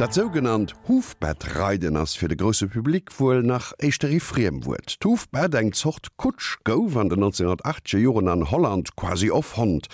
Dat sougenannt Hufbettreiden ass fir de grousse Public wuel nach éischter ee Friemwuert. D'Hufbett, eng Zort Kutsch, gouf an den 1980er Joren an Holland quasi erfonnt.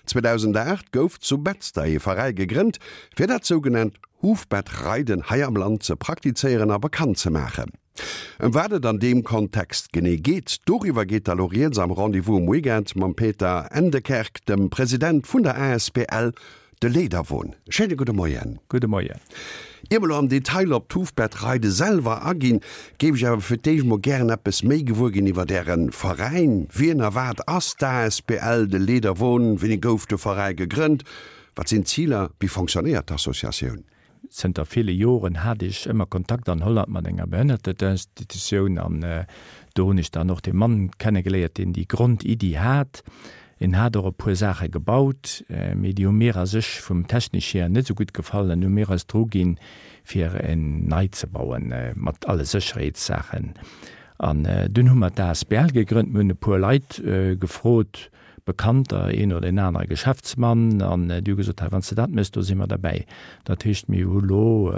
2008 gouf zu Betzder ee Veräi gegrënnt, fir dat sougenannt Hufbettreiden hei am Land ze praktizéieren a bekannt ze maachen. Ëm wat et an deem Kontext genee geet, doriwwer geet da lo rieds am Rendez-vous um Weekend mam Peter Endekerk, dem President vun der asbl De Leederwon. Schéine gudde Moien. Gudde Moien. Ier mer lo am Detail op d'Hufbettreide selwer aginn, géif ech awer fir d'éischt mol gären eppes méi gewuer ginn iwwert Äre Veräin. Wien a wat ass d'asbl De Leederwon? Wéini gouf de Veräi gegrënnt? Wat sinn d'Ziler? Wéi fonctionnéiert d'Associatioun? Zënter ville Joren hat ech ëmmer Kontakt an Holland mat enger Behënnerteninstitutioun an do hunn ech dann och dee Mann kennegeléiert, deen déi Grondiddi hat. En hat och e puer Saache gebaut, mee déi hu mir a sech vum technesch hier net esou gutt gefall an hu mir eis dru ginn, fir en nei ze bauen mat alle Sécherheetssaachen. An dunn hu mer d'ASBL gegrënnt. Mir hunn e puer Leit gefrot, Bekannter, een oder een anere Geschäftsmann, an déi hu gesot, hei wann s de dat méchs, do si mer derbäi. Dat heescht, mir hu lo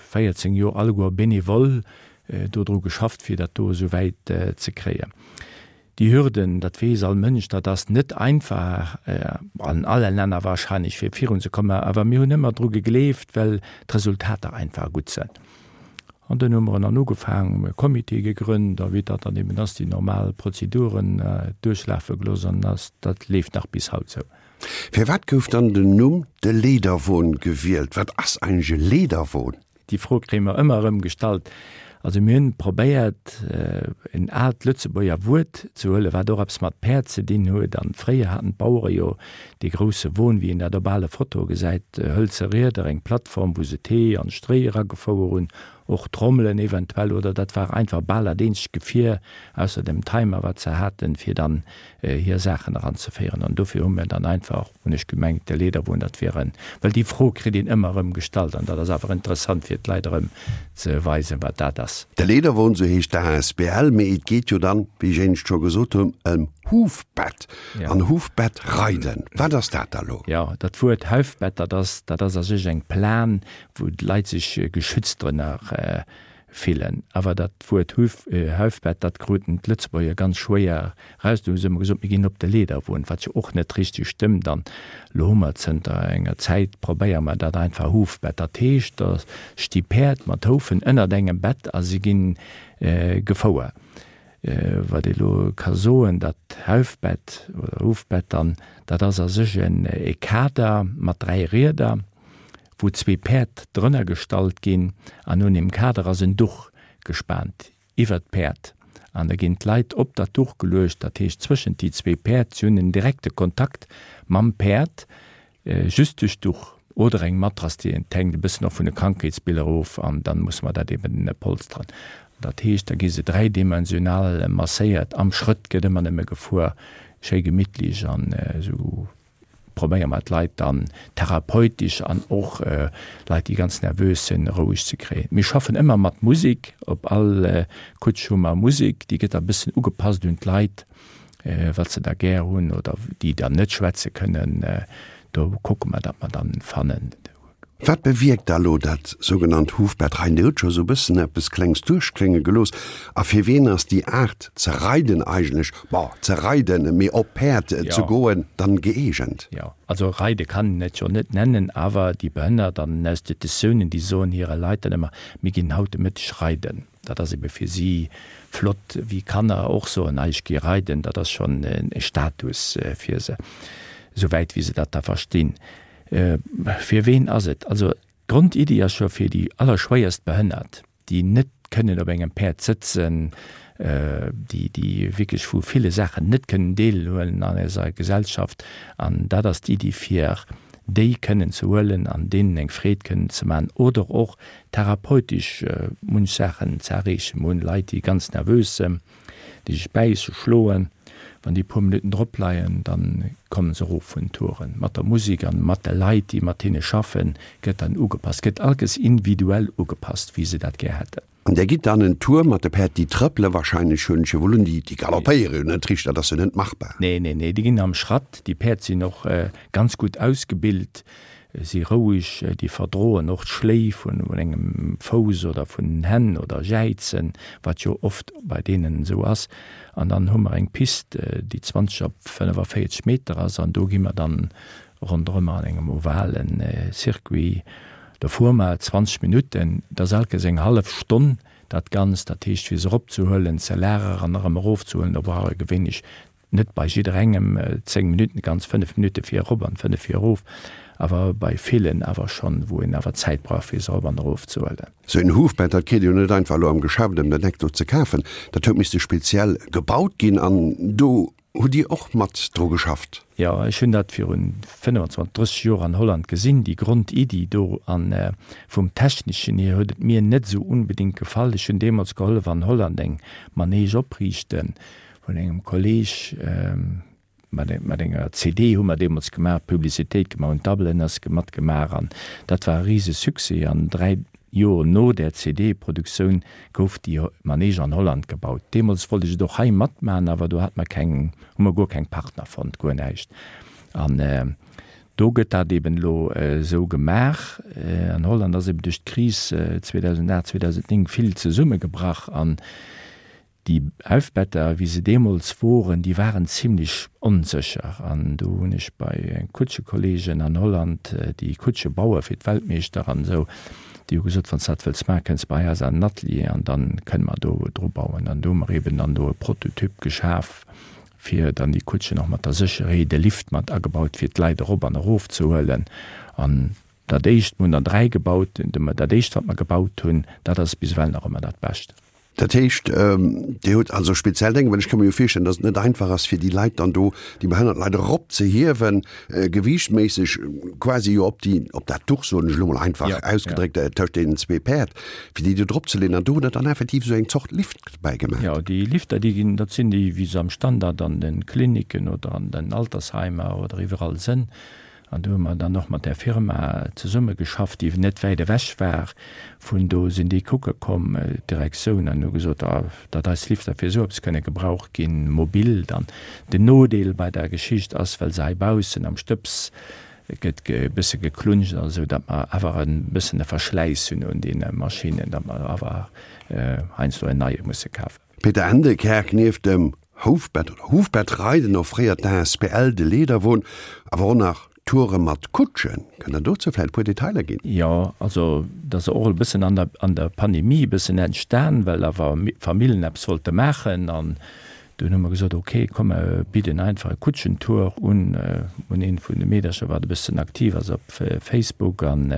14 Joer alleguer bénévol do dru geschafft, fir dat do esou wäit ze kréien. Déi Hürden, dat weess all Mënsch, dat ass net einfach, an alle Länner wahrscheinlech, fir virunzekommen, awer mir hunn ëmmer dru gegleeft, well d'Resultater einfach gutt sënn. An dunn hu mer en dann ugefaangen, e Comité gegrënnt a wéi dat dann eben ass, déi normal Prozeduren duerchlafe gelooss an ass, dat leeft nach bis haut sou. Firwat gouf dann den Numm De Leederwon gewielt? Wat ass eigentlech e Leederwon? Déi Fro kréie mer ëmmer erëm gestallt. Also mir hunn probéiert, en aalt Lëtzebuerger Wuert ze huelen, wat och eppes mat Päerd ze dinn huet. An fréier haten d'Bauere jo dee grousse Won, wéi een dat op ale Fotoe gesäit, hëlze Rieder, eng Plattform, wou se d'Hee an d'Stréi eragefouer hunn, och Trommelen eventuell, oder dat war einfach bal dat eenzegt Gefier, ausser dem Timer, wat se haten, fir dann hir Saachen eranzeféieren. An dofir hu mir dann einfach, hunn ech gemengt, de Leederwon, dat wier en, well déi Fro kritt een ëmmer erëm gestallt an dat ass awer interessant, fir d'Leit erëm ze weisen, wat dat ass. De Leederwon, sou heescht d'ASBL, mee et geet jo dann, wéi ech éinescht scho gesot hunn, ëm Hufbett. An Hufbett reiden, wat ass dat da lo? Jo, dat Wuert Huifbett, dat ass, dat ass a sech eng Plan, wou d'Leit sech geschützt drënner fillen. Awer dat Wuert Huf, Huifbett, dat kruten d'Lëtzebuerger ganz schwéier raus. Du hu se ëmmer gesot, mir ginn op de Leederwon, wat jo och net richteg stëmmt. An elo hu mer zënter enger Zäit, probéiere mer dat einfach Hufbett. Dat heescht, da sti Päerd mat Houfen ënnert engem Bett a si gi gefouer. Wat ee lo ka soen, dat Haufbett oder Hufbett dann, dat ass a sech en e Kader mat 3 Rieder, wou zwee Päerd drënner gestallt ginn an un deem Kader ass en Duch gespaant iwwert d'Päerd an da ginn d'Leit op dat Duch geluecht, dat heescht zwëschent déi zwee Päerd, si hunn en direkte Kontakt mam Päerd, Just duerch d'Duch oder eng Matrass, déi et hänkt e bëssen och vun de Krankheetsbiller of an dann musse mer dat eben polsteren. Dat heescht, da gi se dräidimensional masséiert, am Schrëtt gëtt ëmmer nëmme gefuer, schéi gemittlech an esou probéiere mer d'Leit dann therapeutesch an och Leit, déi ganz nervös sinn, roueg ze kréien. Mir schaffen ëmmer mat Musek, op all Kutsch hu mer Musek, déi gëtt da e bëssen ugepasst un d'Leit. wat se da gär hunn oder déi dann net schwätze kënnen, do kucke mer, datt mer dann fannen. Wat bewierkt da lo dat sougenannt Hufbett reiden? Dir hutt scho sou e bëssen eppes Klengs duerchklénge gelooss. A fir wien ass déi Aart ze reiden eigentlech, bon, ze reiden, mee op Päerd ze goen, dann gëeegent? Jo, also reide kann een et jo net nennen, awer déi Behënnert an den Institutiounen, déi soen hire Leit dann ëmmer, mir ginn haut de Mëtteg reiden. Dat ass ebe fir si flott, wéi Kanner och soen, ah ech gi reiden, dat ass schonn e Status fir se, esouwäit wéi se dat da verstinn. Fir ween ass et? Also d'Grondiddi ass scho fir déi allerschwéierst Behënnert, déi net kënnen op engem Päerd sëtzen, déi déi wierklech vu ville Saachen net kënnen deelhuelen an eiser Gesellschaft. An dat ass d'Iddi fir déi kënnen ze huelen an deenen eng Freed kënnen ze maachen oder och therapeutesch munch Saachen ze erreechen. Mir hunn Leit, déi ganz nervös sënn, déi sech bäisse, schloen. Wann déi e puer Minutten drop leien, da kommen se erof vun den Touren. Mat der Musek an mat de Leit, déi mat hinne schaffen, gëtt dann ugepasst, gëtt allges individuell ugepasst, wéi se dat gär hätten. An där gitt dann en Tour mat de Päerd, déi trëppele wahrscheinlech, hunn ech jo wuel un, déi galoppéiere jo net richteg, dat ass jo net machbar. Nee, nee, nee, déi ginn am Schratt. Déi Päerd sinn och ganz gutt ausgebilt. Si roueg, déi verdroen och d'Schléi vun engem Fouss oder vun den Hänn oder Jäizen, wat jo oft bei deenen esou ass. An dann hu mer eng Pist, déi 20 op 45 Meter ass an do gi mer dann ronderëm an engem ovale Circuit. Do fuere mer 20 Minutten, dat ass alkes eng hallef Stonn dat Ganzt. Dat heescht, fir se eropzehuelen, ze lageren an erëm erofzehuelen, do brauch ee gewéinlech Net bei jidderengem 10 Minutten, ganz 5 Minutte fir erop an 5 fir erof, awer bei villen awer schonn, wou een awer Zäit brauch fir se erop an erof ze huelen. Sou een Huffbett, dat kritt ee jo net einfach elo am Geschäft ëm den Eck do ze kafen. Dat huet misste speziell gebaut ginn an do hutt Dir och mat dru geschafft? Jo, ech hunn dat virun 25, 30 Joer an Holland gesinn, déi Grondiddi do. An vum Techneschen hier huet et mir net esou unbedingt gefall. Ech hunn deemools gehollef an Holland eng Manege opriichten, Vun engem Kolleg mat enger CD hu mer deemools gemaach, Publicitéit gemaach, hunn d'Tabelen ass matgemaach an dat war e rise Succès. An 3 Joer no där CD-Produktioun gouf déi Manege an Holland gebaut. Deemools wollt ech et och hei matmachen, awer do hat mer keng, hu mer guer keng Partner fonnt, guer näischt. An do gëtt dat eben elo esou gemaach. An Holland ass eben duerch d'Kris 2008, 2009 vill zesummegebrach an Déi Huffbetter, wéi se deemools woren, déi waren zimlech onsécher. An do hunn ech bei Kutschekolleegen an Holland, déi Kutsche baue fir d'Weltmeeschter an esou, déi hu gesot, Wann s de dat wëlls maachen, kënns bei eis an den Atelier an da kënne mer do dru bauen. An do hu mer eeben dann do e Prototyp geschaf, fir dann déi Kutschen och mat der Sécherheet, e Lift mat agebaut, fir d'Leit erop an erof ze huelen. An dat éischt, mir hunn der 3 gebaut, dat éischt, wat mer gebaut hunn, dat ass bis ewell nach ëmmer dat Bescht. Dat heescht, Dir hutt also speziell Dénge, well ech ka mir jo virstellen, datt et net einfach ass, fir déi Leit dann do, déi behënnert Leit eropzehiewen, gewiichtméisseg quasi jo op déi, op dat Duch, soen ech elo mol einfach ausgedréckt, tëscht deenen zwee Päerd, fir déi do dropzeleeën. An do hutt Der dann effektiv esou eng Zort Lift bäigemaach? Jo, déi Lifter, déi ginn, dat sinn déi, wéi se am Standard an de Kliniken oder an den Altersheimer oder iwwerall sënn. An do hu mer dann och mat där Firma zesummegeschafft, déi net wäit ewech war. Vun do sinn déi kucke komm, d'Direktioun, an hu gesot, datt eis Lifter fir esou eppes kënne gebraucht ginn, mobil dann. Den Nodeel bei der Geschicht ass, well se hei baussen am Stëbs gëtt e bësse geklunscht an esou, datt mer awer e bëssen e Verschläiss hunn un deene Maschinnen, datt mer awer heiansdo en neie musse kafen. Peter Endekerk, Nieft dem Houfbett oder Hufbettreiden offréiert d'ASBL De Leederwon awer och nach Toure mat Kutschen. Kënnt Der dozou vläicht e puer Detailer ginn? Jo, also dat ass och e bëssen an der an der Pandemie e bëssen entstan, well awer Famillen eppes wollte maachen an dunn hu mer gesot, ok, komm mer bidden einfach e Kutschentour un, un eent vun de Meedercher wat e bëssen aktiv ass op Facebook an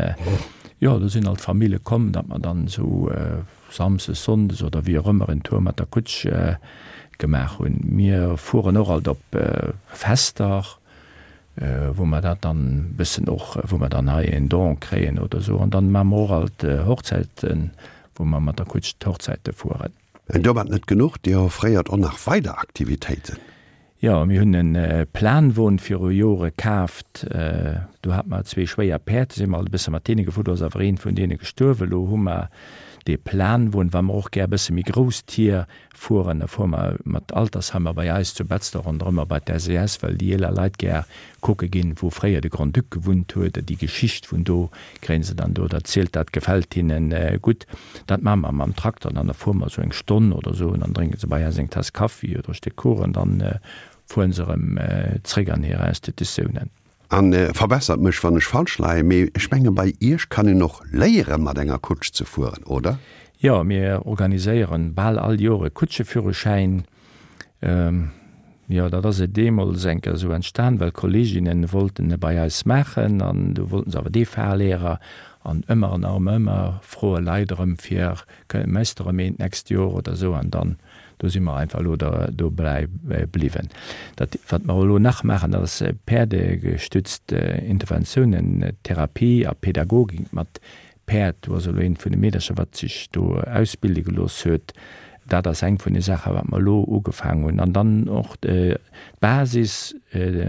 jo, do sinn alt Famille komm, datt mer dann esou Samsdes, Sonndes oder wéi och ëmmer en Tour mat der Kutsch gemaach hunn. Mir fueren och alt op Fester, wou mer dat dann bëssen och, wou mer dann hei en Don kréien oder esou. An dann maache mer och alt Hochzäiten, wou mer mat der Kutsch d'Hochzäite fueren. An domat net genuch, Dir offréiert och nach weider Aktivitéiten. Jo, mir hunn e Planwon viru Jore kaaft. Do hate mer zwee schwéier Päerd, do si mer alt e bësse mat deene gefuer. Do ass awer eent vun deene gestuerwen. Elo hu mer dee Planwon, wa mer och gär e bësse méi grouss Tier fueren, da fuere mer mat Altersheimer bei eis zu Betzder ronderëm a bei d'SES, well déi eeler Leit gär kucke ginn, wou fréier de Grand-Duc gewunnt huet, déi Geschicht vun do kréie se dann do erzielt, dat gefält hinnen gutt. Dat maache mer mam Trakter dann, da fuere mer esou eng Stonn oder esou an dann drénke se bei eis eng Taass Kaffi oder e Stéck Kuchen, dann fuere se erëm zréck an hir Institutiounen. A verbessert mech wann ech falsch leien, mee ech menge bei iech kann een och léiere mat enger Kutsch ze fueren, oder? Jo, mir organiséieren bal all Joer e Kutscheführerschäin. Jo, dat ass et deemools eng Kéier esou entstan, well Kolleeginnen wollten e bei eis maachen an du wollten se awer dee Fahrlehrer an ëmmer an erëm ëmmer froe Leit erëm fir, méchs de erëm een d'nächst Joer oder esou an dann do si mer einfach elo dobäi bliwwen. Dat wat mer elo nach maachen, dat ass päerdegestützt Interventiounen, Therapie a Pädagogik mat Päerd, do ass elo eent vun de Meedercher, wat sech do ausbilde gelooss huet. Dat ass eng vun de Saachen, wat mer elo ugefaangen hunn. An dann och d'Basis,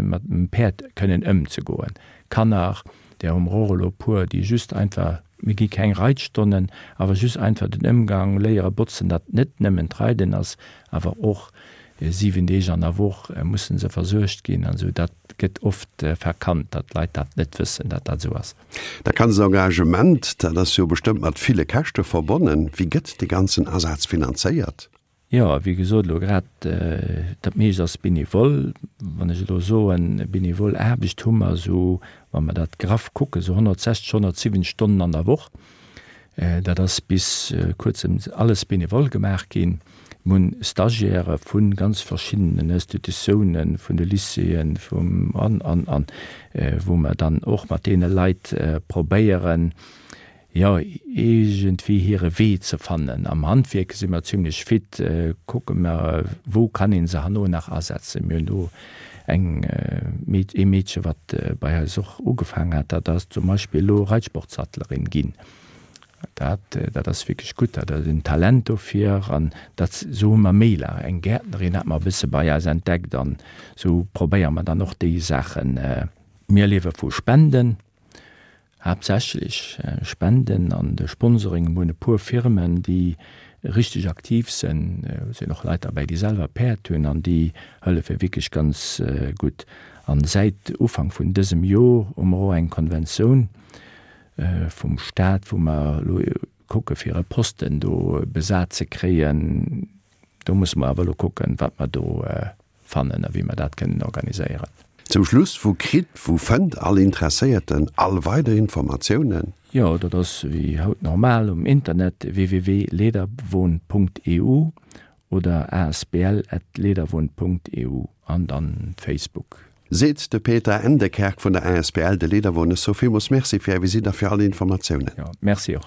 mat dem Päerd kënnen ëmzegoen. Kanner, där hu mer och elo e puer, déi just einfach, mir gi keng Reitstonnen, awer just einfach den Ëmgang léiere botzen, datt net nëmmen d'Reiden ass, awer och. 7 Deeg an der Woch musse se versuergt ginn an esou. Dat gëtt oft verkannt, datt d'Leit dat net wëssen, datt dat esou ass. Dat ganzt Engagement, dat ass jo bestëmmt mat ville Käschte verbonnen. Wéi gëtt dee ganzen Asaz finanzéiert? Jo, wéi gesot, elo grad dat meescht ass bénévol. Wann ech elo soen, bénévol Aarbecht hu mer esou, wa mer dat graff kucken, esou 160, 170 Stonnen an der Woch. Dat ass bis kuerzem alles bénévol gemaach ginn. Mir hunn Stagiairë vu ganz verschiddenen Institutiounen, vun de Lycéeën, vum an, an, an, wou mer dann och mat deene Leit probéieren, jo, iergendwéi hire Wee ze fannen. Am Handwierk si mer zimlech fit, kucke mer, wou kann ee se herno nach asetzen. Mir hunn do eng Meed, ee Meedche, wat bei eis och ugefaangen hat, dat ass zum Beispill elo Reitsportsattlerin ginn. Dat, dat ass wierklech gutt, dat ass en Talent dofir an dat, esou hu mer méi la. Eng Gäertnerin hat mer e bësse bei eis entdeckt an esou probéiere mer dann och déi Saachen. Mir liewe vu Spenden. Haaptsächlech Spenden an de Sponsoring. Mir hunn e puer Firmen, déi richteg aktiv sinn. Do sinn och Leit derbäi, déi selwer Päerd hunn an déi hëllefe wierklech ganz gutt. An säit Ufank vun dësem Jor hu mer och eng Konventioun vum Staat, wou mer elo kucke fir e Posten do besat ze kréien. Do musse mer awer elo kucken, wat mer do fannen a wéi mer dat kënnen organiséieren. Zum Schluss, Wou kritt, wou fënnt all Interesséierten all weider Informatiounen? Jo, dat ass wéi haut normal um Internet, www.leederwon.eu oder asbl@leederwon.eu an dann Facebook. Seet de Peter Endekerk vun der asbl De Leederwon. Ech soe villmools Merci fir Är Visitt a fir all Informatiounen. Jo, Merci och.